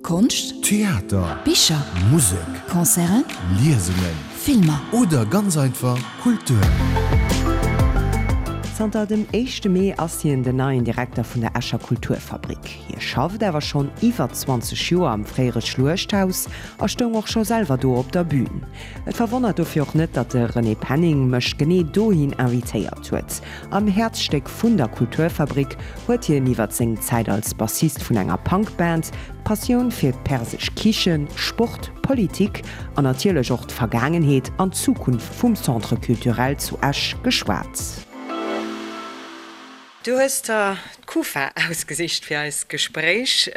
Konscht. Theater. Bicher. Musek. Concerten. Liesungen. Filmer. Oder ganz einfach Kultur. Zanter dem éischte Mee ass hien den neien Direkter vun der Escher Kulturfabrik. Hie schafft awer schonn iwwer 20 Joer am fréiere Schluechthaus a stoung och scho selwer do op der Bün. Et verwonnert dofir och net, datt de René Penning mech genee dohin invitéiert huet. Am Häerzstéck vun der Kulturfabrik huet hien iwwer seng Zäit als Bassist vun enger Punkband, d'Passioun fir d'persesch Kichen, Sport, Politik an natierlech och d'Vergaangenheet an d'Zukunft vum Centre Culturel zu Esch geschwat. Du hues der d'Kufa ausgesicht fir eist Gespréich.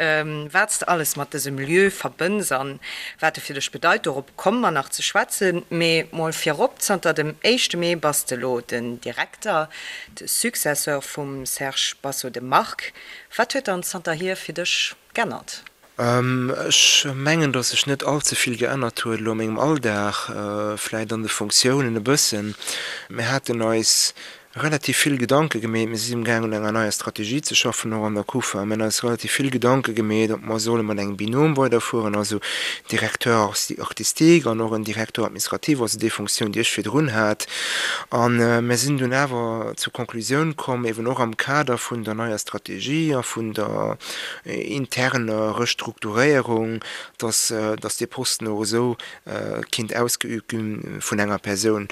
Wat s de alles mat dësem Lieu verbënns an wat e fir dech bedeit, dorop komme mer nach ze schwätzen. Mee mol virop, Zanter dem éischte Mee bass de elo den Direkter, de Successeur vum Serge Basso de Marc. Wat huet dann zanterhier fir dech g'ännert? Ech mengen, datt sech net all ze vill geännert huet elo a mengem Alldag, vläit an de Fonctiounen e bëssen. Mir haten eis relativ vill Gedanke gemeet, mir si amgaang un enger neier Strategie ze schaffen, och an der Kufa. Mir hunn eis relativ vill Gedanke gemeet, ob mer solle mat engem Binôme weiderfueren, also Directeur artistique an och en Directeur administratif, also déi Fonctioun, déi ech virdrun hat. A mir sinn dunn awer zur Conclusioun komm, eben och am Kader vun der neier Strategie a vun der interner Restrukturéierung, dass dass dee Posten och esou kinnt ausgeübt gi vun enger Persoun.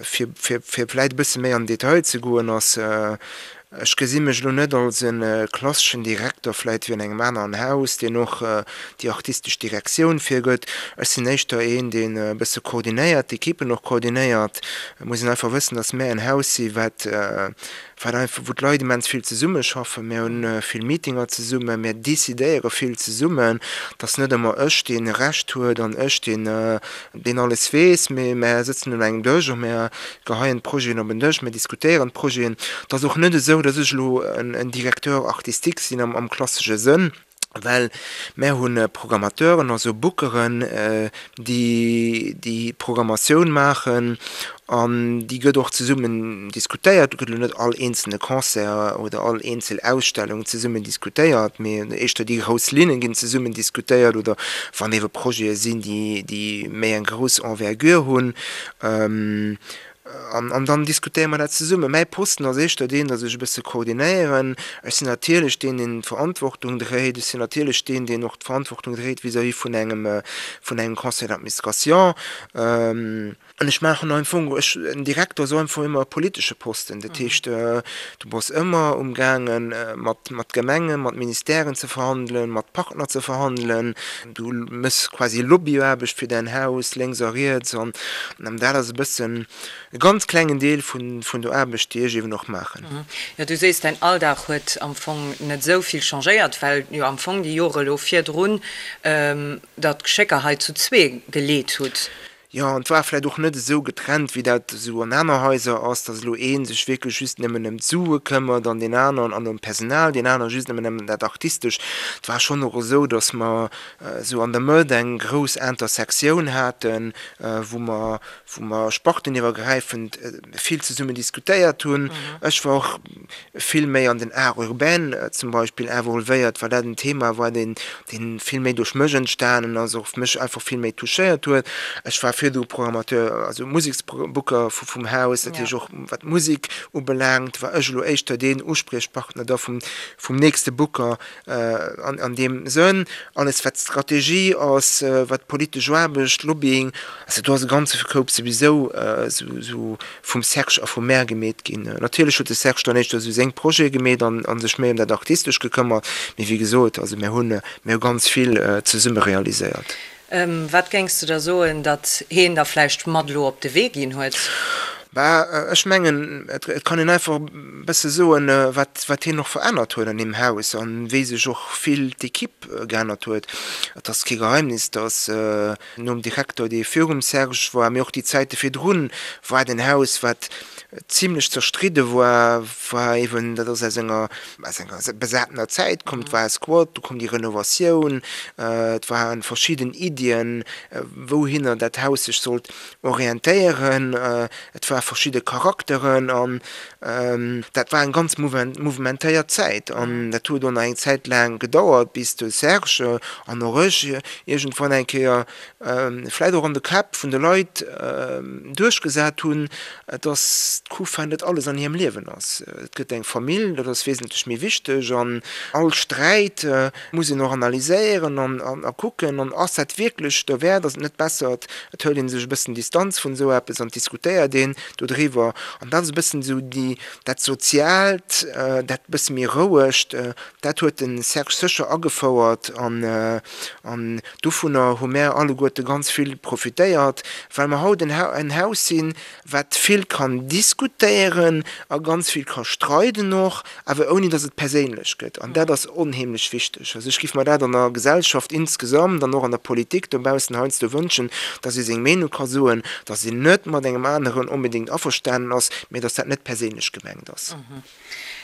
Fir fir fir vläit e bësse méi an den Detail ze goen, ass, ech gesi mech elo net als e klasseschen Direkter vläit wéi an engem aneren Haus, deen och déi artistesch Direktioun virgëtt. Ech sinn éischter een, deen e bësse koordinéiert, d'Ekippen och koordinéiert. Et muss een einfach wëssen, dass mär en Haus si wat wat einfach, wou d'Leit immens vill zesummeschaffen. Mir hunn vill Meetinger zesummen, mir decidéiere vill zesummen. Et ass net ëmmer ech, dee Recht huet an ech, deen, deen alles weess, mee mär sëtzen un engem Dësch a mär geheien d'Projeten op en Dësch, mir diskutéieren d'Projeten. Et ass och net esou, datt ech elo en Directeur artistique sinn am klassesche Sënn. Well mär hu Programmateuren, also Bookeren, déi déi Programmatioun maachen an déi gëtt och zesummen diskutéiert. Do gëtt elo net all eenzelne Concert oder all eenzel Ausstellung zesummen diskutéiert, mee éischter déi grouss Linne ginn zesummen diskutéiert oder wann eebe Projete sinn, déi méi eng grouss Envergure hunn. An dann diskutéiere mer dat zesummen. Mäi Posten ass éischter deen, datt ech e bësse koordinéieren. Ech sinn natierlech deen, deen d'Verantwortung dréit. Ech sinn natierlech deen, deen och d'Verantwortung dréit vis-à-vis vun engem, vun engem Conseil d'administration. An ech maachen am Fong, ech, en Direkter ass am Fong ëmmer e politesche Posten. Dat heescht, du bass ëmmer umgaangen, mat, mat Gemengen, mat Ministèren ze verhandelen, mat Partner ze verhandelen. Du méchs quasi Lobbyaarbecht fir däin Haus, lénks a riets. An dat ass e bëssen e ganz klengen Deel vun der Aarbecht, déi ech eeben och maachen. Jo, du sees, däin Alldag huet am Fong net esou vill changéiert, well jo am Fong déi Jore elo virdrun der d'Geschécker hei zu zwee geleet hutt. Jo, an et war vläicht och net esou getrennt, wéi dat esou an aner Haiser ass, datt elo ee sech wierklech just nëmmen ëm d'Sue këmmert an deen aneren an ëm d'Personal, deen anere just nëmmen ëm dat Artistescht. Et war schonn och esou, datt mer esou an der Mëtt eng grouss Intersektioun haten, wou mer, wou mer sparteniwwergräifend vill zesummen diskutéiert hunn. Ech war och vill méi an den Art urbain zum Beispill involvéiert, well dat en Thema war, deen, deen vill méi duerch mech entstanen ass, och mech einfach vill méi touchéiert huet. Ech war virdru Programmateur, also Museksbooker vum Haus, dat heescht och wat d'Musek ubelaangt, war ech elo éischter deen Uspriechpartner da vum, vum nächste Booker an, an deem Sënn. Alles wat Strategie ass, wat politesch Aarbecht, Lobbying, also do ass e ganze Koup souwisou esou vum Serge a vum mär gemeet ginn. Natierlech huet de Serge dann éischter esou seng Projete gemeet an a sech méi ëm dat Artistescht gekëmmert, mee wéi gesot, also mär hunn, mär hu ganz vill zesumme realiséiert. Wat géings de da soen, datt heen der vläicht mat elo op de Wee ginn huet? Bah, ech mengen, et kann een einfach e bësse soen, wat, wat hien och verännert huet an deem Haus an wéi sech och vill d'Equipe geännert huet. Et ass kee Geheimnis, datt Nom Direkter, dee virum Serge war, mee och déi Zäite virdrun, war et en Haus, wat zimlech zerstridde war, war eeben, dat ass aus enger, aus enger besatener Zäit komm, et war e Squat, du koum déi Renovatioun, et ware verschidden Iddien, wouhinner dat Haus sech sollt orientéieren. Et war. verschidde Charakteren an dat war eng ganz mouvementéiert Zäit an dat huet och nach eng Zäit laang gedauert, bis de Serge an och ech iergendwann eng Kéier vläit och an de Käpp vun de Leit duerchgesat hunn, dass d'Kufa net alles an hirem Liewen ass. Et gëtt eng Famill, dat ass wesentlech méi wichteg an all Sträit muss een och analyséieren an a kucken an ass dat wierklech derwäert, ass et net besser, et hëlt ee sech e bëssen Distanz vun esou eppes an diskutéiert een dodriwwer. An dat ass e bëssen esou déi, dat Soziaalt, dat bësse méi Rouegt, dat huet de Serge sécher agefouert an an dovunner hu mär alleguerte ganz vill profitéiert, well mer haut en Haus sinn, wat vill kann diskutéieren a ganz vill ka streiden och, awer ouni datt et perséinlech gëtt. An dat ass onheemlech wichteg. Also ech géif mer dat an der Gesellschaft insgesamt an och an der Politik dobaussen heiansdo wënschen, datt ee seng Meenung ka soen, datt een net mat engem aneren onbedéngt averstanen ass, mä datt dat net perséinlech gemengt ass.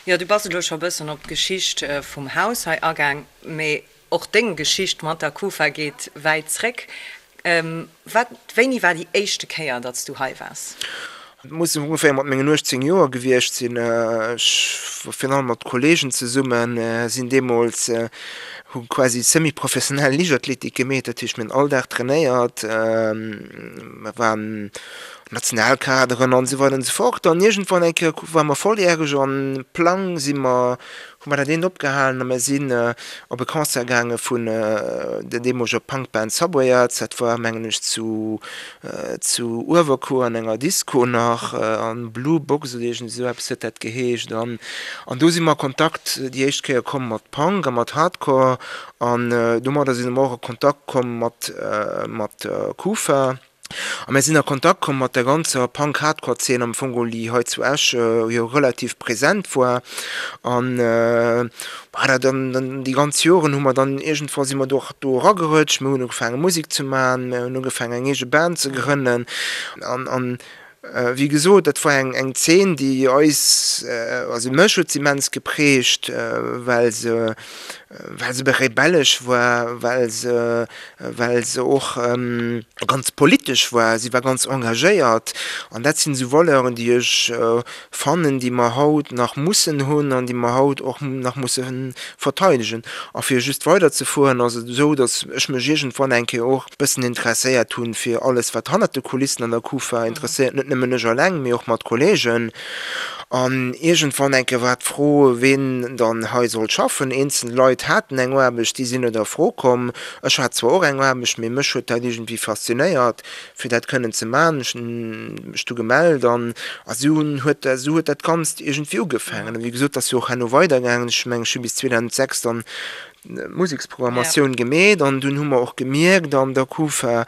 Jo, du bass elo scho e bëssen op d'Geschicht vum Haus hei agaang, mä Och deng Geschicht mat der Kufa geet wäit zréck. Wat, wéini war déi éischte Kéier, datt s du hei waars? Et muss ongeféier mat mengen 18 Joer gewiescht sinn. Ech war virun allem mat Kolleegen zesummen, sinn deemools, hu quasi semi-professionell Liichtathletik gemeet, dat heescht mir hunn all Dag trainéiert, mer waren Nationalkaderen an esou weider an esou fort. An iergendwann eng Kéier ware mer volljäreg an Plang si mer hu mer dat eent opgehalen a mir sinn op e Concert gaange vun der deemoleger Punkband Subway Arts. Dat war, mengen ech, zu zu Uewerkuer an enger Disco nach, an Blue Box oder iergend esou eppes huet dat geheescht. An an do si mer a Kontakt déi éischt Kéier komm mat Punk a mat Hardcore an domadder si mer och a Kontakt komm mat mat der Kufa. A mir sinn a Kontakt komm mat der ganzer Punk-Hardcore-Zeen am Fong geholl, déi hei zu Esch jo relativ present war. An voilà, dann, dann déi ganz Joren hu mer dann iergendwa si mer do och do eragerëtscht. Mir hunn ugefaange Musek ze maachen, mir hunn ugefaangen eng eege Band ze grënnen. An, an wéi gesot, dat war eng, eng Zeen, déi eis, also mech huet se immens geprägt, well se, well se rebellesch war, well se, well se och ganz politesch war, si war ganz engagéiert an dat sinn esou Valeuren, déi ech fannen, déi mer haut nach mussen hunn an déi mer haut och nach musse verteidegen. A fir just weiderzefueren, ass et esou, datt ech mech iergendwann eng Kéier och e bëssen interesséiert hunn fir alles, wat hannert de Kulissen an der Kufa interesséiert, net nëmmen ech eleng, mee och mat Kollegen. An iergendwann eng Kéier war d'Fro, ween dann hei sollt schaffen. Eenzel Leit haten eng Aarbecht, déi sinn net a Fro komm. Ech hat zwar och eng Aarbecht, mee mech huet dat iergendwéi faszinéiert, fir dat kënnen ze maachen. Ech hunn mech du gemellt an esou huet esou huet dat Ganzt iergendwéi ugefaangen. A wéi gesot, dat ass jo och herno weidergaangen. Ech mengen, ech hu bis 2006 dann Museksprogrammatioun gemeet an dunn hu mer och gemierkt an der Kufa,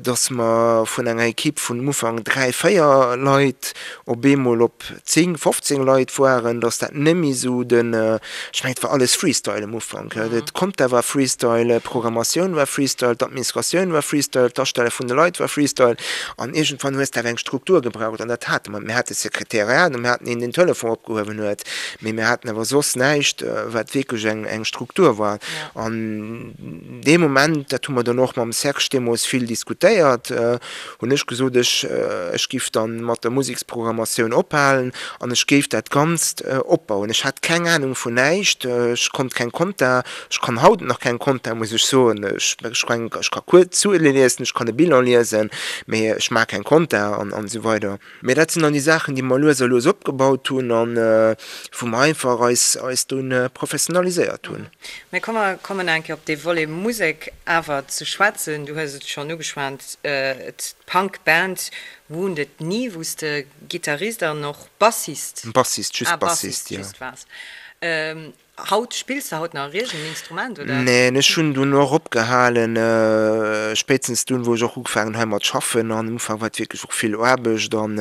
dass mer vun enger Equipe vun um Ufank 3, 4 Leit op eemol op 10, 15 Leit waren, dass dat net méi esou den, ech mengen et war alles Freestyle um Ufank, d'Compta war Freestyle, d'Programmatioun war Freestyle, d'Administratioun war Freestyle, d'Astelle vun de Leit war Freestyle an iergendwann hues de awer eng Struktur gebraucht an dat hate mer net. Mir hate Sekretariat a mir haten een, deen den Telefon opgehuewen huet. Mee mir haten awer soss näischt, wat wierklech eng, eng Struktur war. An dee Moment, dat hu mer dann och mam Serge deemools vill diskutéiert, hunn ech gesot, ech, ech giff dann mat der Museksprogrammatioun ophalen an ech géif dat Ganzt opbauen. Ech hat keng Anung vun näischt, ech konnt keng Compta, ech kann haut nach keng Compta, muss ech soen. Ech, ech kann, ech ka kuerz Zuele liesen, ech kann e Bilan liesen, mee ech maache keng Compta an, an esou weider. Mee dat sinn dann déi Saachen, déi mer lues a lues opgebaut hunn an wou mer einfach eis, eis dunn professionaliséiert hunn. Mee komm mer kommen eng Kéier op dee Volet Musek awer ze schwätzen. Du hues et schonn ugeschwat, d'Punk-Band Wounded Knee, wou s de Gittarist an och Bassist, Bassist, just Bassist, jo. Bassist waars. Haut, spills de haut nach iergend en Instrument, oder? Neen, ech hunn dunn och opgehalen, spéitstens dunn, wou ech och ugefaangen hu heimat schaffen. An am Ufank war et wierklech och vill Aarbecht an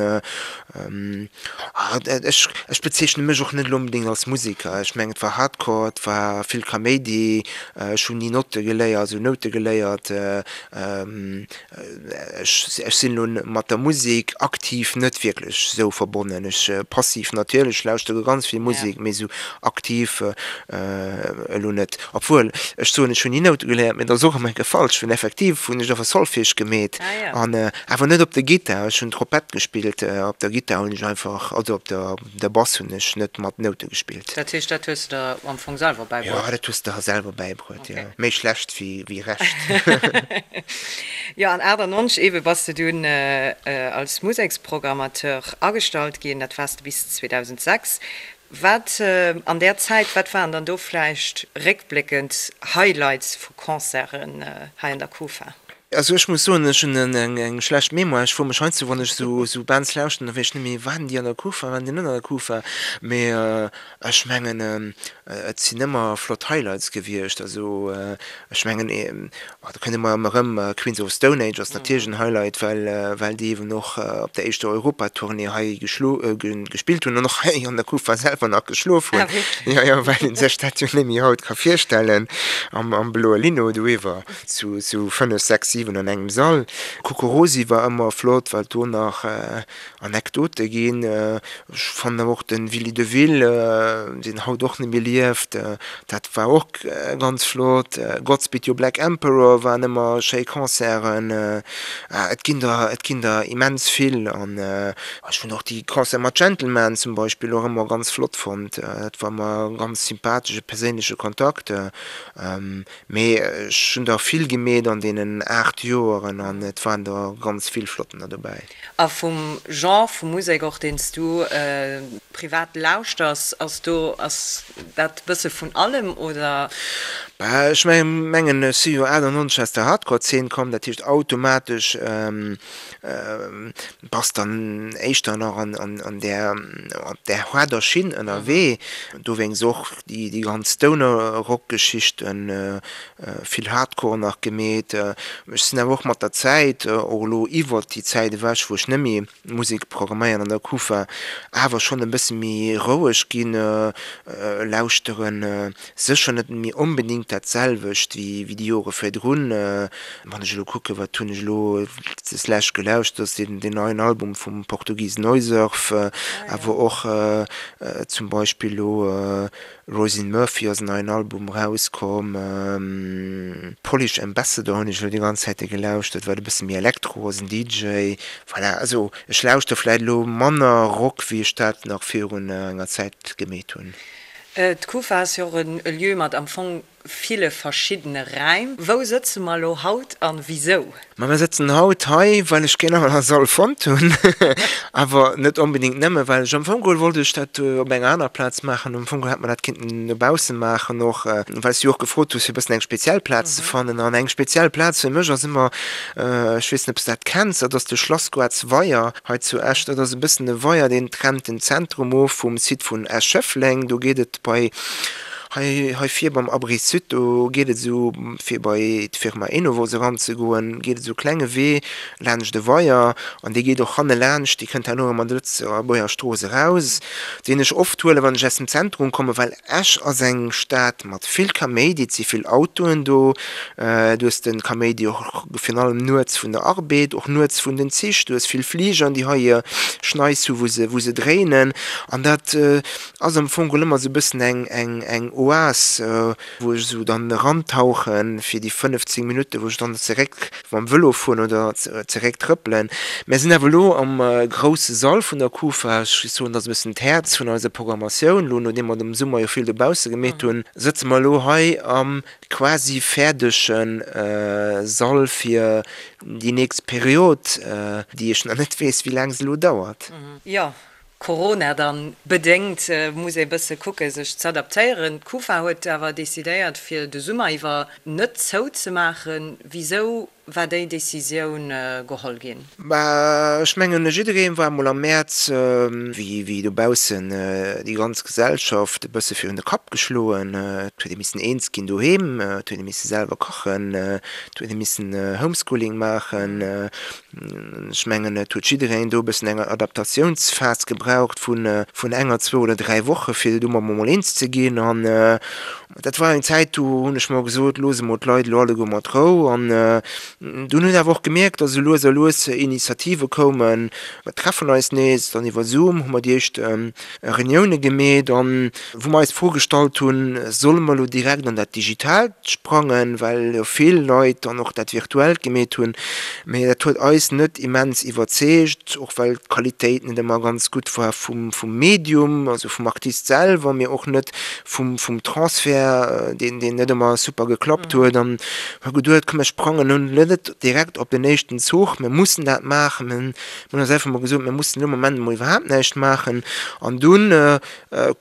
ech, ech bezeechne mech och net elo onbedéngt als Museker. Ech mengen, et war Hardcore, et war vill Kaméidi, ech hunn ni Notte geléiert, also Noute geléiert. Ech, ech sinn elo mat der Musek aktiv net wierklech esou verbonnen. Ech, passiv natierlech, lauschtere ganz vill Musek, mee esou aktiv. Elo net, obwuel ech soen, ech hunn ni Noute geléiert, mee dat ass och ëmmer enke falsch, well effektiv hunn ech awer Solfège gemeet an awer net op der Gittar. Ech hunn Trompett gespillt, op der Gittar hunn ech einfach, also op der der Bass hunn ech net mat Noute gespillt. Dat heescht, dat hues de der am Fong selwer bäibruet? Jo, dat hues de der selwer bäibruet, jo. Méi schlecht wéi recht. Jo, an 98 eebe bass de dunn als Museksprogrammateur agestallt ginn, dat waars de bis 2006. Wat an där Zäit, wat waren dann do vläicht réckbléckend Highlights vu Concerten hei an der Kufa? Also ech muss soen, ech hunn eng schlecht Mémoire. Ech froe mech heiansdo, wann ech esou Bands lauschten, da weess ech net méi, waren déi an der Kufa, waren déi net an der Kufa? Mee ech mengen, et sinn ëmmer flott Highlights gewiescht. Also ech mengen, do kënnt ëmmer erëm Queens of the Stone Age ass natierlech en Highlight, well well déi eeben och op der éischter Europatournée hei geschlo gespillt hunn an och hei an der Kufa selwer nach geschlof hunn. Jo, jo, well ee sech dat jo net méi haut ka virstellen, am am bloe Lino doiwwer zu zu 5, 6, 7 an engem Sall. Kokorosi war ëmmer flott, well do nach Anekdote ginn. Ech fannen awer och de Willy Deville, deen haut och net méi lieft, dat war och ganz flott. Godspeed You Black Emperor waren ëmmer schéi Concerten. Et ginn der, et ginn der immens vill. An ech hunn och déi Concerte mat Gentleman zum Beispill och ëmmer ganz flott fonnt. Dat war ëmmer e ganz sympathesche perséinleche Kontakt. Mee ech hunn der vill gemeet an deenen 8 Joeren an et waren der ganz vill flottener dobäi. A vum Genre vu Musek och deen s du privat lauschters, ass do, ass dat bësse vun allem oder? Bah ech mengen ech si jo 98 aus der Hardcore-Zeen komm, dat heescht automatesch bass dann éischter nach an där, op där haarder Schinn ënnerwee, dowéinst och déi ganz Stoner-Rock-Geschichten, vill Hardcore nach gemeet. Ech sinn awer och mat der Zäit, och elo iwwert déi Zäit ewech, wou ech net méi Musek programméieren an der Kufa, awer schonn e bësse méi roueg ginn, lauschteren sécher net méi onbedéngt dat selwecht wéi déi Jore virdrun. Wann ech elo kucken, wat hunn ech elo deslescht gelauschtert, ass deen neien Album vum Portugis Noisurf, awer och zum Beispill elo Róisín Murphy ass en neien Album erauskomm. Polish Ambassador hunn ech elo déi ganz Zäite gelauschtert, wat e bësse méi Elektro ass, en DJ. Voilà, also ech lauschter vläit elo manner Rock, wéi ech dat nach virun enger Zäit gemeet hunn. D'Kufa ass jo och e Lieu mat am Fong ville verschiddene Räim. Wou sëtze mer elo haut an wisou? Ma mir sëtzen haut hei, well ech keen anere Sall fonnt hunn. Awer net onbedéngt nëmme well ech, am Fong geholl wollt ech dat op enger anerer Plaz maachen. Am Fong geholl hätt mer dat kinnten dobausse maachen och, well s du jo och gefrot hues, fir e bëssen eng speziell Plaz ze fannen. An eng speziell Plaz fir mech ass ëmmer, ech weess net, ob s de dat kenns, dat ass de Schlassgoartsweier hei zu Esch. Dat ass e bëssen e Weier, deen trennt den Zentrum of vum Site vun Esch-Schëffleng. Do geet et bei Hei, hei vir beim Abri Sud, do geet et esou, fir bei d'Firma Enovos eranzegoen, geet et esou e klenge Wee laanscht e Weier an dee geet och hanne laanscht, dee kënnt herno erëm an der Lëtzebuerger Strooss eraus, deen ech oft huelen, wann ech aus dem Zentrum kommen, well Esch ass eng Stad mat vill Kaméidi, et si vill Autoen do, du hues de Kaméidi och virun allem nuets vun der Arbed, och nuets vun den Zich, du hues vill Fligern, déi hei hir Schneis hu wou se, wou se dréinen an dat Ass am Fong geholl ëmmer sou bëssen eng eng eng Oas, wou ech sou dann erantauchen fir déi 15 Minutten, wou ech dann zeréck mam Vëlo fueren oder zeréck trëppelen. Mär sinn awer elo am grousse Sall vun der Kufa. Ech géif soen, dat ass e bëssen d'Häerz vun eiser Programmatioun. Elo, nodeem mer am Summer jo vill dobausse gemeet hunn, sëtze mer elo hei am quasi fäerdege Sall fir déi nächst Period, déi ech nach net weess, wéi laang se elo dauert. Jo, Corona dann bedéngt muss ee bësse kucke sech z'adaptéieren. D'Kufa huet awer decidéiert fir de Summer iwwer net zou ze maachen. Wisou war déi Decisioun geholl ginn? Bah ech mengen jidderee war emol am Mäerz, wéi dobaussen déi ganz Gesellschaft e bësse virun de Kapp geschloen. Et huet ee missen eens ginn doheem, et huet ee misse selwer kachen, et huet ee missen Homeschooling maachen. Ech mengen, et huet jiddereen do e bëssen eng Adaptatiounsphas gebraucht vun enger, zwou oder dräi Woche fir domat emol eens ze ginn. An, Dat war eng Zäit, do hunn ech mer gesot, looss emol d'Leit elo alleguer mat Rou. An dunn hunn awer och gemierkt, datt esou lues a lues Initiative koumen, mer treffen eis nees. Dann iwwer Zoom hu mer déi éischt Reunioune gemeet an wou mer eis d'Fro gestallt hunn, solle mer elo direkt an dat Digitaalt sprangen, well jo vill Leit dann och dat Virtuellt gemeet hunn. Mee dat huet eis net immens iwwerzeegt, och well d'Qualitéit net ëmmer ganz gutt war vum Medium, also vum Artist selwer, mee och net vum vum Transfert, deen deen net ëmmer super geklappt huet an hu geduet, komm mir sprangen elo net direkt op den éischten Zuch, mir mussen dat maachen. Mir hunn eis einfach mol gesot, mir mussen elo am Moment emol iwwerhaapt näischt maachen an dunn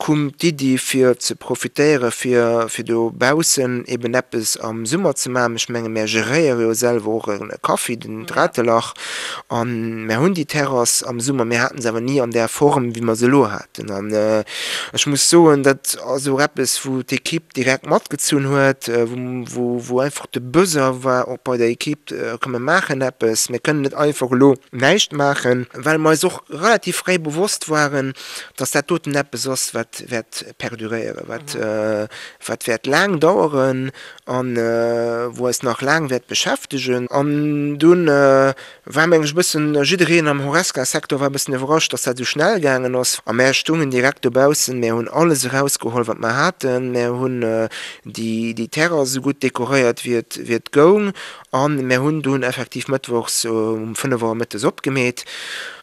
koum d'Iddi fir ze profitéiere fir fir dobaussen eben eppes am Summer ze maachen. Ech menge mär geréiere jo selwer och e Kaffi, den Dratelach, an mär hunn déi Terrass am Summer, mir haten se awer ni an där Form wéi mer se elo haten. An ech muss soen, dat ass och eppes, wou d'Ekipp direkt matgezunn huet, wou einfach de Besoin war och bei der Ekipp, komm mir maachen eppes, mir kënnen net einfach elo näischt maachen, well mer eis och relativ fréi bewosst waren, dass dat doten eppes ass, wat wäert perduréieren, wat wäert laang daueren a wou eis nach laang wäert beschäftegen. An dunn War meng ech e bëssen, jiddereen am Horesca-Secteur war e bëssen iwwerrascht, dass dat esou schnell gaangen ass. A mär stungen direkt dobaussen, mär hunn alles erausgeholl, wat mer haten, mär hunn déi Terrass esou gutt dekoréiert, wéi et, wéi et goung. A mär hunn dunn effektiv mëttwochs um 5 Auer mëttes opgemeet.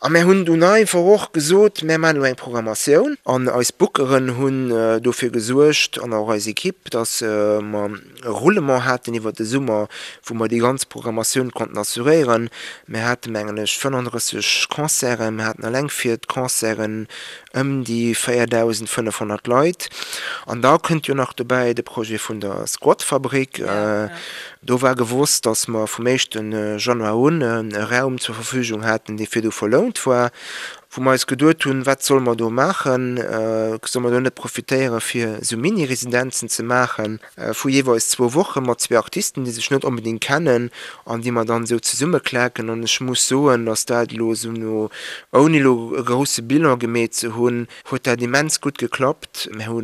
A mär hunn dunn einfach och gesot, mär maachen elo eng Programmatioun. An eis Bookeren hunn dofir gesuergt, an och eis Ekipp, dass mer, e Roulement haten iwwer de Summer, wou mer déi ganz Programmatioun konnten assuréieren. Mir hate mengen ech 35 Concerten, mir haten eleng fir d'Concerten ëm déi 4.500 Leit. An da kënnt jo nach dobäi de Projet vun der Squatfabrik. Do war gewosst, datt mer vum éischte Januar un e Raum zur Verfügung haten, dee virdu verlount war, wou mer eis geduet hunn, wat solle mer do maachen, solle mer do net profitéiere fir esou Mini-Residenzen ze maachen? Vu jeeweils zwou Woche mat zwee Artisten, déi sech net onbedéngt kennen an déi mer dann esou zesummeklaken. An ech muss soen, datt dat elo esou no, ouni elo e grousse Bilan gemeet ze hunn, huet dat immens gutt geklappt. Mir hu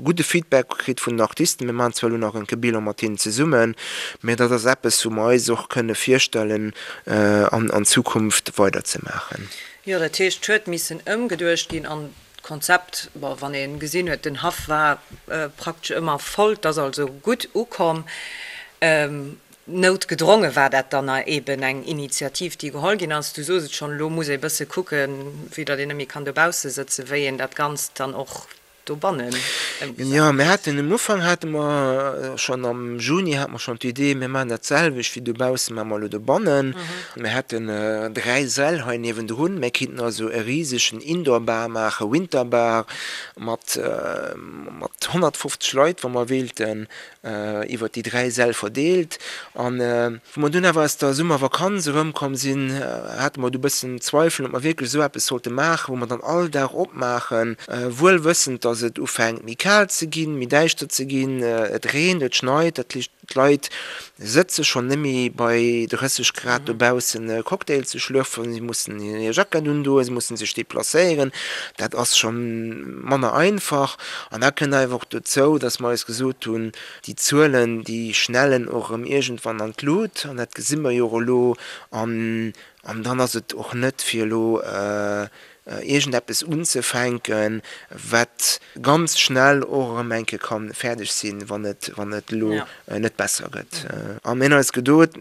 gudde Feedback kritt vun den Artisten. Mir maachen zwar elo nach enke Bilan mat hinnen zesummen, mä dat ass eppes, wou mer eis och kënne virstellen, an Zukunft weiderzemaachen. Jo, dat heescht, et huet missen ëmgeduecht ginn an D'Konzept, bon, wann ee gesinn huet, den Haff war praktesch ëmmer voll, 't ass also gutt ukomm. Noutgedronge war dat dann eben eng Initiativ, déi geholl ginn ass. Du soos et schonn, elo muss ee bësse kucken, vue datt een net méi kann dobausse sëtzen, wéi een dat Ganzt dann och dobannen ëmgesat Jo, mir haten um Ufank hate mer schonn am Juni hate mer schonn d'Idee, mir maachen dat selwecht wéi dobaussen, maache mer elo dobannen. Mir hätten 3 Säll hei niewendrun. Mir kinnten also e risegen Indoor-Bar maachen, Winter-Bar, mat mat 150 Leit, wa mer wéilten, iwwer déi 3 Säll verdeelt. An wou mer dunn awer aus der Summervakanz erëmkomm sinn, hate mer du e bëssen Zweifelen, ob mer wierklech esou eppes sollte maachen, wou mer dann all Dag opmaachen, wuel wëssend, dass et ufänkt méi kal ze ginn, méi däischter ze ginn, et reent, et schneit, dat heescht, D'Leit sëtze schonn net méi bei 30 Grad dobaussen e Cocktail ze schlürfen, si mussen hir Jackett undoen, si mussen sech deplacéieren, dat ass scho manner einfach. An da kënnt einfach och dozou, datt mer eis gesot hunn, déi Zuelen, déi schnellen och erëm iergendwann an d'Lut an dat gesi mer jo och elo. An dann ass et och net fir elo iergendeppes unzefänken, wat ganz schnell och erëm eng Kéier ka fäerdeg sinn, wann et, wann et elo net besser gëtt. A mir hunn eis geduet,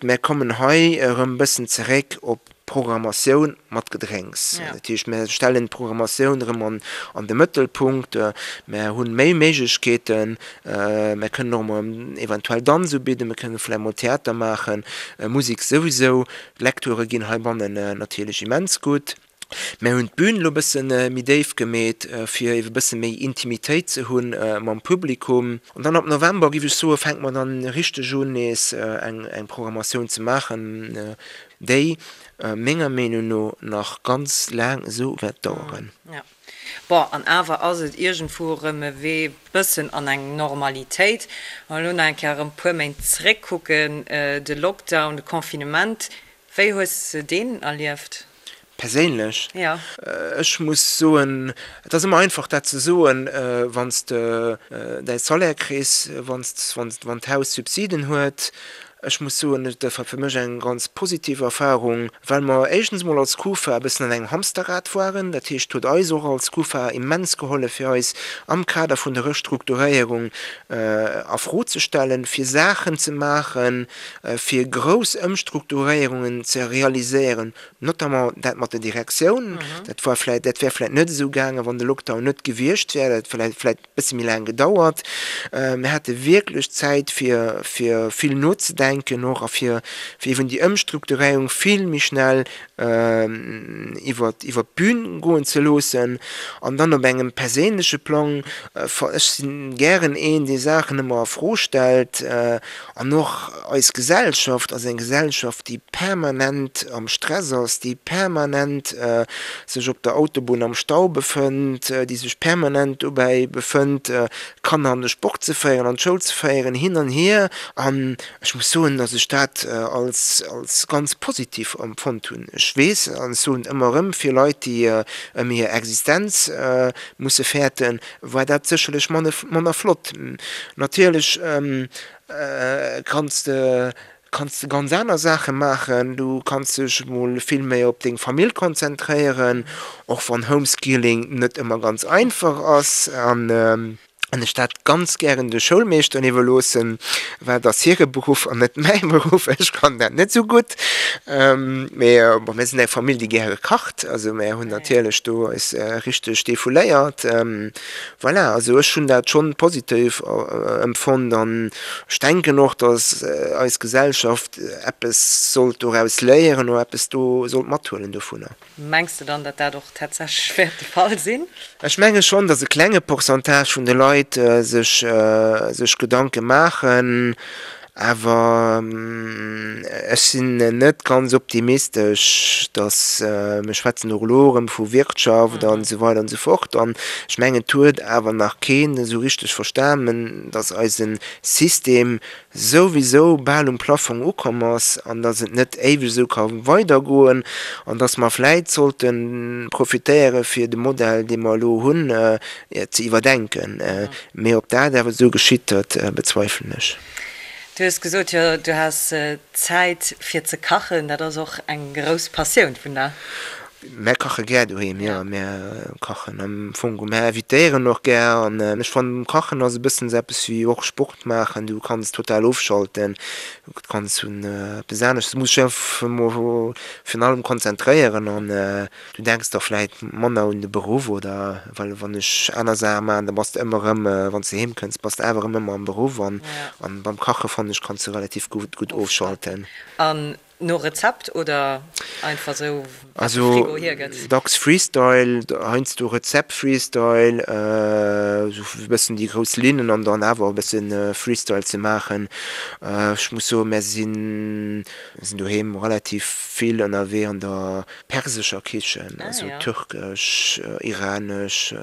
mir kommen hei erëm e bëssen zeréck op d'Programmatioun mat Gedrénks. Dat heescht, mir stellen d'Programmatioun erëm an, an de Mëttelpunkt. Mir hu méi Méiglechkeeten. Mir kënnen och emol eventuell Danz ubidden, mir kënnen vläicht mol Theater maachen, Musek souwisou. D'Lecturë ginn heibannen natierlech immens gutt. Mär hunn d'Bün elo e bësse méi déif gemeet, fir ebe bësse méi Intimitéit ze hu mam Publikum. An dann ab November, géif ech soen, fänke mer dann richteg un, nees eng Programmatioun ze maachen, déi menger Meenung no nach ganz laang esou wäert daueren. Bon, an awer ass et iergendwou erëm e Wee bëssen an eng Normalitéit. Wa mer elo nach eng Kéier erëm e puer Méint zeréckkucken, de Lockdown, de Confinement, wéi hues de deen erlieft? Perséinlech? Jo. Ech muss soen, et ass ëmmer einfach dat ze soen, wann s de däi Salaire kriss, wann s, wann d'Haus Subsiden huet. Ech muss soen, et war fir mech eng ganz positiv Erfahrung, well mer éischtens emol als Kufa e bëssen an engem Hamsterrad waren. Dat heescht, et huet eis och als Kufa immens gehollef, fir eis am Kader vun der Restrukturéierung a Fro ze stellen, fir Saachen ze maachen, fir grouss Ëmstrukturéierungen ze realiséieren, notamment dat mat der Direktioun. Dat war vläicht, dat wär vläicht net esou gaangen, wann de Lockdown net gewiescht wär. Dat hätt vläicht e bësse méi laang gedauert. Mir hate wierklech Zäit, fir, fir vill nozedenken och a fir, fir eeben déi Ëmstrukturéierung vill méi schnell iwwer, iwwer d'Bün goen ze loossen. An dann op engem perséinleche Plang, ech si gären een, dee Saachen ëmmer a Fro stellt, An och eis Gesellschaft ass eng Gesellschaft, déi permanent am Stress ass, déi permanent sech op der Autobunn am Stau befënnt, déi sech permanent dobäi befënnt, Kanner an de Sport ze féieren, an d'Schoul ze féieren, hin an hier. An ech muss soen, datt ech dat als als ganz positiv empfonnt hunn. Ech weess, an ech soen et ëmmer erëm, fir Leit, déi ëm hir Existenz musse fäerten, war dat sécherlech manner flott. Natierlech kanns de kanns de ganz aner Saache maachen, du kanns dech mol vill méi op deng Famill konzentréieren, och wann Homeschooling net ëmmer ganz einfach ass an ech dat ganz gären de Schoulmeeschteren iwwerloossen, well et ass hire Beruff an net mäi Beruff, ech kann dat net esou gutt. Mee bon, mir sinn eng Famill, déi gäre kacht, also mär hunn natierlech do eis richteg defouléiert. Voilà, also ech hunn dat schonn positiv empfonnt an ech denken och, datt eis Gesellschaft eppes sollt doraus léieren oder eppes do sollt mathuelen dovunner. Mengs de dann, datt dat och tatsächlech wäert de Fall sinn? Ech menge schonn, datt e klenge Pourcentage vun de Leit sech sech Gedanke maachen, awer ech sinn net ganz optimistesch, datt, mir schwätzen och elo erëm vu Wirtschaft an esou weider an esou fort, an ech mengen et huet awer nach keen esou richteg verstanen, datt eise System souwisou bal um Plaffong ukomm ass an dass et net éiweg esou ka weidergoen an dass mer vläit sollte profitéiere fir de Modell, dee mer elo hunn, ze iwwerdenken. Mee ob dat awer esou geschitt, dat bezweifelen ech. Du hues gesot, jo, du has Zäit fir ze kachen. Dat ass och eng grouss Passioun vun der. Mär kache gär doheem, jo. Mär kachen am Fong, mär invitéieren och gär. An ech fannen, Kachen ass e bëssen esou eppes wéi och Sport maachen. Du kanns total ofschalten, du kanns un eppes anescht, du muss dech einfach emol virun allem konzentréieren an du denks da vläit manner un de Beruff oder well wann ech aner Saache maachen, da bass de ëmmer erëm, wann s de heem kënns, bass de awer erëm ëmmer am Beruff. An beim Kache fannen ech, kanns de relativ gutt ofschalten. An No Rezept oder einfach sou wat de Frigo hiergëtt? Also dacks Freestyle, heiansdo Rezept Freestyle, sou e bëssen déi grouss Linnen an dann awer e bësse Freestyle ze maachen. Ech muss soen, mär sinn doheem relativ vill ënnerwee an der persescher Kichen, also türkesch, iranesch,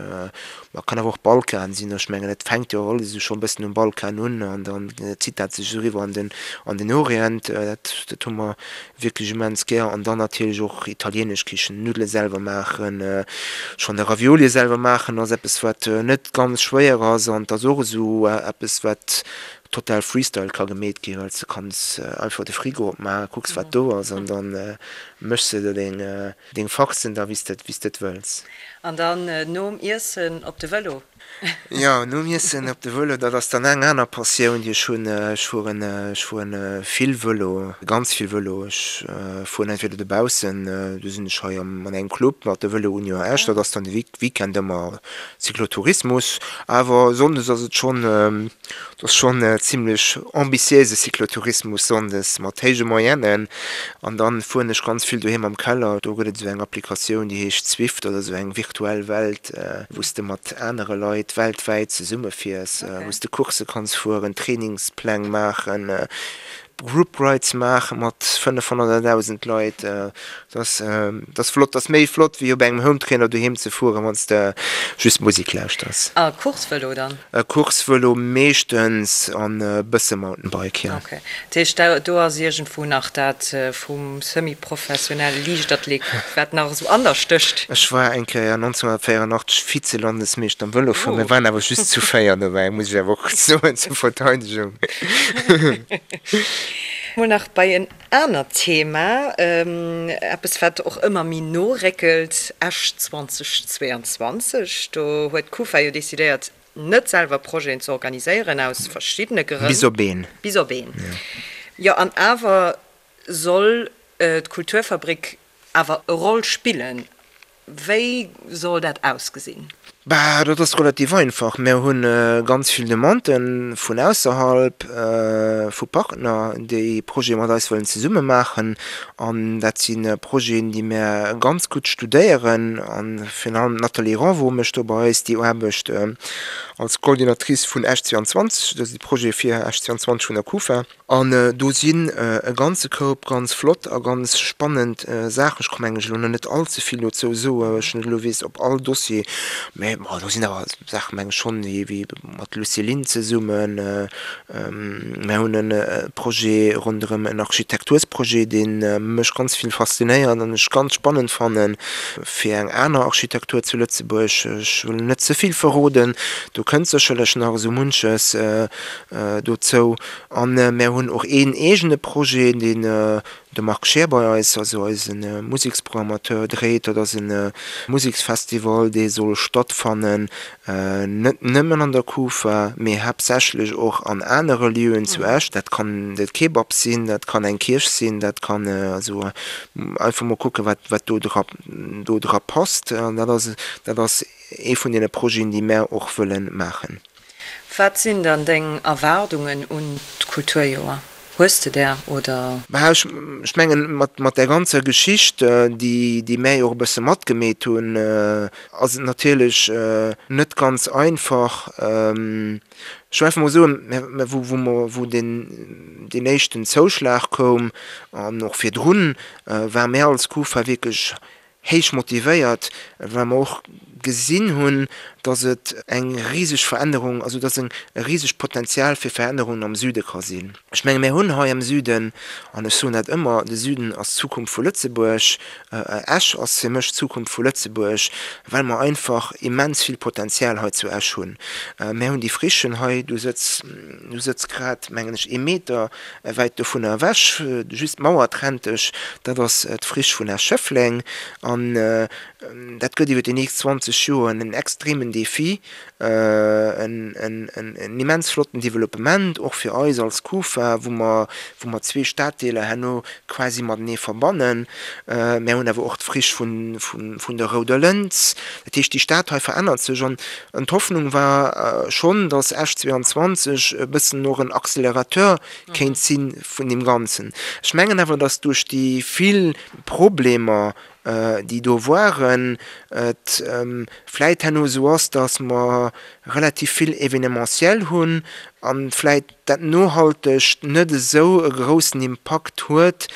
Ma kann awer och Balkan sinn. Ech mengen, et fänkt jo alles esou schonn e bëssen um Balkan un an dann zitt dat sech esou eriwwer an den, an den Orient. Dat, dat hu mer wierklech immens gär. An dann natierlech och italienesch Kichen, Nuddele selwer maachen. Schonn de Raviolie selwer maachen ass eppes, wat net ganz schwéier ass an et ass och esou eppes, wat total Freestyle ka gemeet ginn, well s de kanns einfach de Frigo opmaachen, kucks wat do ass an dann méchs de der deng Deng Farcen da wéi s de et wëlls. An dann nom Iessen op de Vëlo? Jo, nom Iessen op de Vëlo, dat ass dann eng aner Passioun déi ech hunn. Ech fueren, ech fueren vill Vëlo, ganz vill Vëlo. Ech fueren entweder dobaussen, do sinn ech hei am an engem Club mat der Vëlo Union Esch, dat ass dann de Weekend ëmmer Cyclotourismus. Awer sonndes ass et schonn, Et ass schonn zimlech ambitiéise Cyclotourismus sonndes mat héije Moyennen. An dann fueren ech ganz vill doheem am Keller. Do gëtt et esou eng Applikatioun, déi heescht Zwift oder esou eng virtuell Welt, wou s de mat anere Leit weltwäit zesumme fiers, wou s de Coursse kanns fueren, Trainingspläng maachen. Group Rides maache mat 500 oder 1.000 Leit. Dat ass, dat ass flott. Dat ass méi flott wéi op engem Hometrainer doheem ze fueren, wann s de just Musek lauschters. A Coursevëlo dann? Coursevëlo meeschtens an e bësse Mountainbike, jo. Ok. Dat heescht, do ass iergendwou nach dat vum semi-professionelle Liichtathlet, wat nach esou an der stécht? Ech war eng Kéier 1984 Vize-Landesmeeschter am Vëlofueren. Mir waren awer just zu 4 dobäi, muss ech awer och soen, zur Verteidegung. Mol nach bei en anert Thema, eppes wat och ëmmer méi no réckelt, Esch 2022. Do huet d'Kufa jo decidéiert, net selwer Projeten ze organiséieren, aus verschiddene Grënn. Bis op een. Bis op een, jo. An awer soll d'Kulturfabrik awer e Roll spillen. Wéi soll dat ausgesinn? Bah, dat ass relativ einfach. Mir hu ganz vill Demandë vun ausserhalb, vu Partner, déi Projete mat eis wëllen zesumme maachen. An dat si Projeten, déi mir ganz gutt studéieren. A virun allem d'Nathalie Renvaux mécht do bei eis déi Aarbecht als Coordinatrice vun Esch 22, dat ass de Projet fir Esch 22 vun der Kufa. An do sinn e ganze Koup ganz flott a ganz spannend Saachen. Ech ka mengen ech elo nach net all ze vill dozou soen, well ech net elo weess op all Dossier, mä bon, do sinn awer Saachen, meng ech schonn, wéi mat Lucilin zesummen. Mir hunn e Projet ronderëm en Architektursprojet, dee mech ganz vill faszinéiert an ech ganz spannend fannen, fir eng aner Architektur zu Lëtzebuerg. Ech wëll net ze vill verroden, do kënnt sécherlech nach esou munches dozou. A mär hunn och een eegene Projet, deen de Marc Scheer bei eis, also eise Museksprogrammateur, dréit. Dat ass e Museksfestival, dee soll stattfannen, net nëmmen an der Kufa, mee haaptsächlech och an anere Lieuen zu Esch. Dat kann de Kebab sinn, dat kann eng Kierch sinn, dat kann also einfach mol kucken, wat wat do dra do dra passt. An dat ass dat ass ee vun deene Projeten, déi mär och wëlle maachen. Wat sinn dann deng Erwaardungen un d'Kulturjoer? Hues de där oder? Bah, ech mengen, mat där ganzer Geschicht, déi mär jo och e bësse matgemeet hunn, ass et natierlech net ganz einfach. Ech wëll einfach mol soen, wou mer, wou deen éischten Zouschlag koum an och virdrun, ware mär als Kufa wierklech héich motivéiert, well mer och gesinn hunn, dass et eng riseg Verännerung, also dass e risegt Potenzial fir Verännerungen am Süde ka sinn. Ech menge mir hunn hei am Süden, an ech soen dat ëmmer, de Süden ass d'Zukunft vu Lëtzebuerg, Esch ass fir mech d'Zukunft vu Lëtzebuerg, well mer einfach immens vill Potenzial hei zu Esch hunn. Mir hunn déi Frichen hei, du sëtz, du sëtz grad, mengen ech, ee Meter wäit dovunner ewech, just d'Mauer trennt dech, dat ass d'Friche vun Esch-Schëffleng. An dat gëtt iwwer déi nächst 20 Joer en extremen Défi, en immens flotten Developpement, och fir eis als Kufa, wou mer, wou mer zwee Staddeeler herno quasi matenee verbannen. Mär hunn awer och d'Friche vun der Rouder Lëns. Dat heescht, déi Stad hei verännert sech. An d'Hoffnung war schonn, datt Esch 22 e bëssen och en Accélérateur kéint si vun deem Ganzen. Ech mengen awer, datt duerch déi vill Problemer, déi do waren, et vläit herno esou ass, datt mer relativ vill Événementiel hunn a vläit dat Nohaltegt net esou e groussen Impakt huet,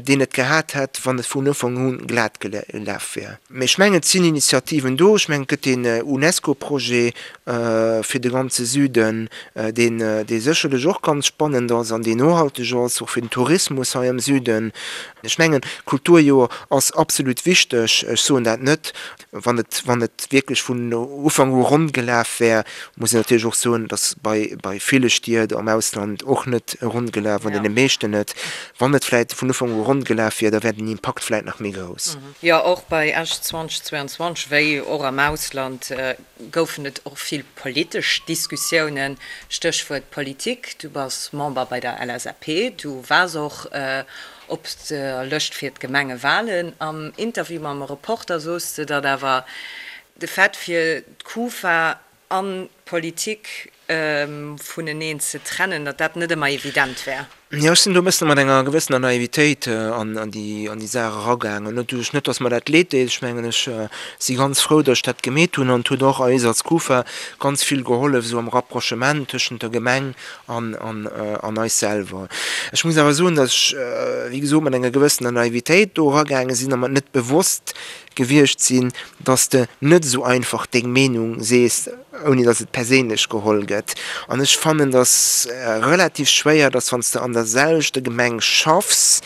deen et gehat hätt, wann et vun Ufank u glat gelaf wär. Mee ech mengen, et sinn Initiativen do. Ech mengen, et gëtt deen UNESCO-Projet fir de ganze Süden, deen, dee sécherlech och ganz spannend ass an deen nohalteg ass, och fir den Tourismus hei am Süden. Ech mengen, d'Kulturjoer ass absolut wichteg. Ech soen dat net, Wann et, wann et wierklech vun Ufank u ronn gelaf wär, muss een natierlech och soen, dass bei, bei ville Stied am Ausland och net ronn gelaf, an deene meeschten net. Wann et vläicht vun Ufank u ronn gelaf wier, da wär den Impakt vläicht nach méi grouss. Jo, och bei Esch 2022, wéi och am Ausland, goufen et och vill politesch Diskussiounen. Stéchwuert Politik, du bass Member bei der LSAP, du waars och Op der Lëscht fir d'Gemengewalen. Am Interview mam Reporter sos de, datt awer de Fait fir d'Kufa an d'Politik vuneneen ze trennen, datt dat net ëmmer evident wär. Jo, ech sinn do e bëssen mat enger gewëssener Naivitéit an déi an déi Saach eragaangen. Net duerch, net datt mer dat leed deet, ech mengen ech si ganz frou, datt ech dat gemeet hunn an et huet och eis als Kufa ganz vill gehollef esou am Rapprochement tëschent der Gemeng an an an eis selwer. Ech muss awer soen, datt ech, wéi gesot, mat enger gewëssener Naivitéit do eragaange sinn a mer net bewosst gewiescht sinn, datt s de net esou einfach deng Meenung sees, ouni datt et perséinlech geholl gëtt. An ech fannen, datt relativ schwéier, datt wann s de an der selwechter Gemeng schaffs,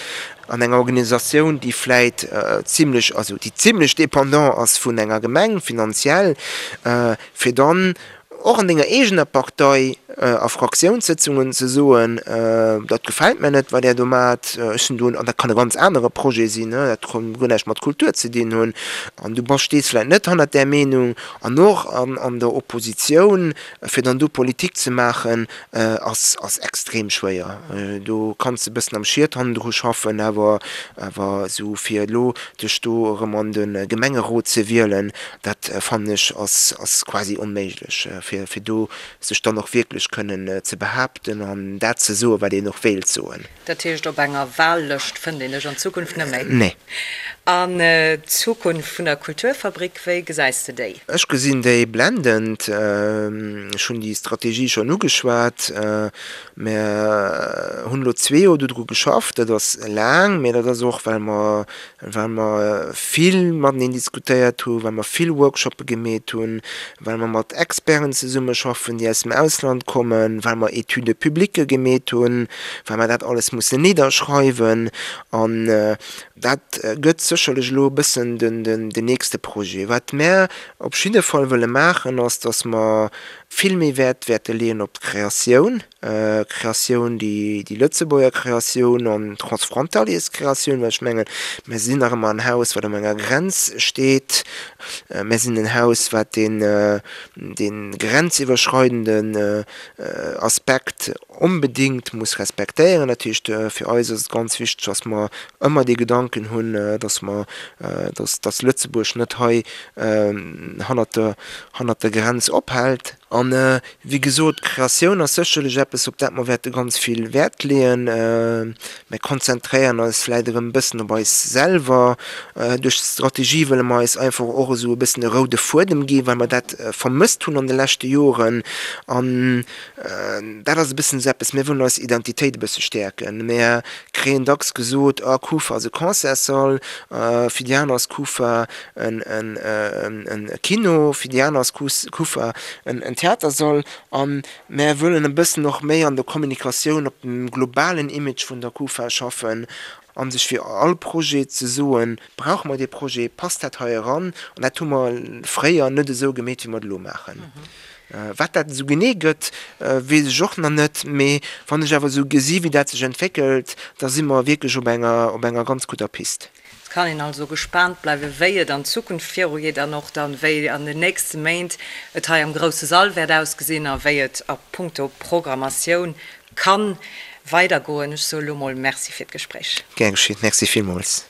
an enger Organisatioun, déi vläit zimlech, also déi zimlech dépendant ass vun enger Gemeng finanziell, fir dann och an denger eegener Partei a Fraktiounssëtzungen ze soen, dat gefält mär net, wat Där do maacht, ech sinn do, an dat kann e ganz anere Projet sinn, dat kann guer näischt mat Kultur ze dinn hunn, an du bass, stees vläicht net hannert där Meenung, an och an der Oppositioun, fir dann do Politik ze maachen, ass ass extrem schwéier. Do kanns de e bëssen am Schiet hannendru schaffen, awer awer esou fir elo dech do erëm an de Gemengerot ze wielen, Dat fannen ech ass ass quasi onméiglech, fir fir do sech dann och wierklech kënnen ze behaapten an dat ze soen, wat een och wéilt soen. Dat heescht, op enger Wahllëscht fënnt een dech an Zukunft net méi? Nee. An d'Zukunft vun der Kulturfabrik, wéi gesäis de déi? Ech gesinn déi blendend. Ech hunn déi Strategie schonn ugeschwat. Mer hunn elo zwee Joer dodru geschafft. Dat ass laang, mä dat ass och, well mer well mer vill mateneen diskutéiert hunn, well mer vill Workshoppe gemeet hunn, well mer mat Experten zesummeschaffen, déi aus dem Ausland kommen, well mer Études publiques gemeet hunn, well mer dat alles mussen nidderschreiwen. An dat gëtt sécherlech elo e bëssen den nächste Projet. Wat mär op jidde Fall wëlle maachen, ass, dass mer vill méi Wäert wäerte leeën op d'Kreatioun. Kreatioun, déi Lëtzebuerger Kreatioun an d'Transfrontalierskreatioun, well ech mengen, mir sinn nach ëmmer en Haus, wat op enger Grenz steet. Mir sinn en Haus, wat deen, dee grenziwwerschreidenden Aspekt onbedéngt muss respektéieren. Dat heescht, fir eis ass et ganz wichteg, dass mer ëmmer dee Gedanken hunn, dass mer, dass, dass Lëtzebuerg net hei hannert der, hannert der Grenz ophält. An, wéi gesot, d'Kreatioun ass sécherlech eppes, op dat mer wäerte ganz vill Wäert leeën. Mir konzentréieren eis vläicht erëm e bëssen op eis selwer. Duerch d'Strategie wëlle mer eis einfach och esou e bëssen e roude Fuedem ginn, well mer dat vermësst hunn an de leschte Joren. An dat ass e bëssen esou eppes, mir wëllen eis Identitéit e bësse stäerken. Mir kréien dacks gesot, ah, Kufa ass e Concertssall, fir déi aner ass Kufa en Kino, fir déi aner ass Kufa en Theatersall. A mär wëllen e bëssen och méi an der Kommunikatioun op dem globalen Image vun der Kufa schaffen a sech fir all Projet ze soen, Brauche mer dee Projet, passt dat hei eran? An dat hu mer fréier net esou gemeet, wéi mer et elo maachen. Wat dat esou genee gëtt, weess ech och nach net, mee wann ech awer esou gesi wéi dat sech entwéckelt, da si mer wierklech op enger, op enger ganz gudder Pist. Et kann een also gespaant bleiwen, wéi et an Zukunft virugeet an och dann, wéi an den nächste Méint et hei am grousse Sall wäert ausgesinn a wéi et a puncto Programmatioun ka weidergoen. Ech soe lo mol Merci fir d'Gespréich. Gär geschéet. Merci villmools.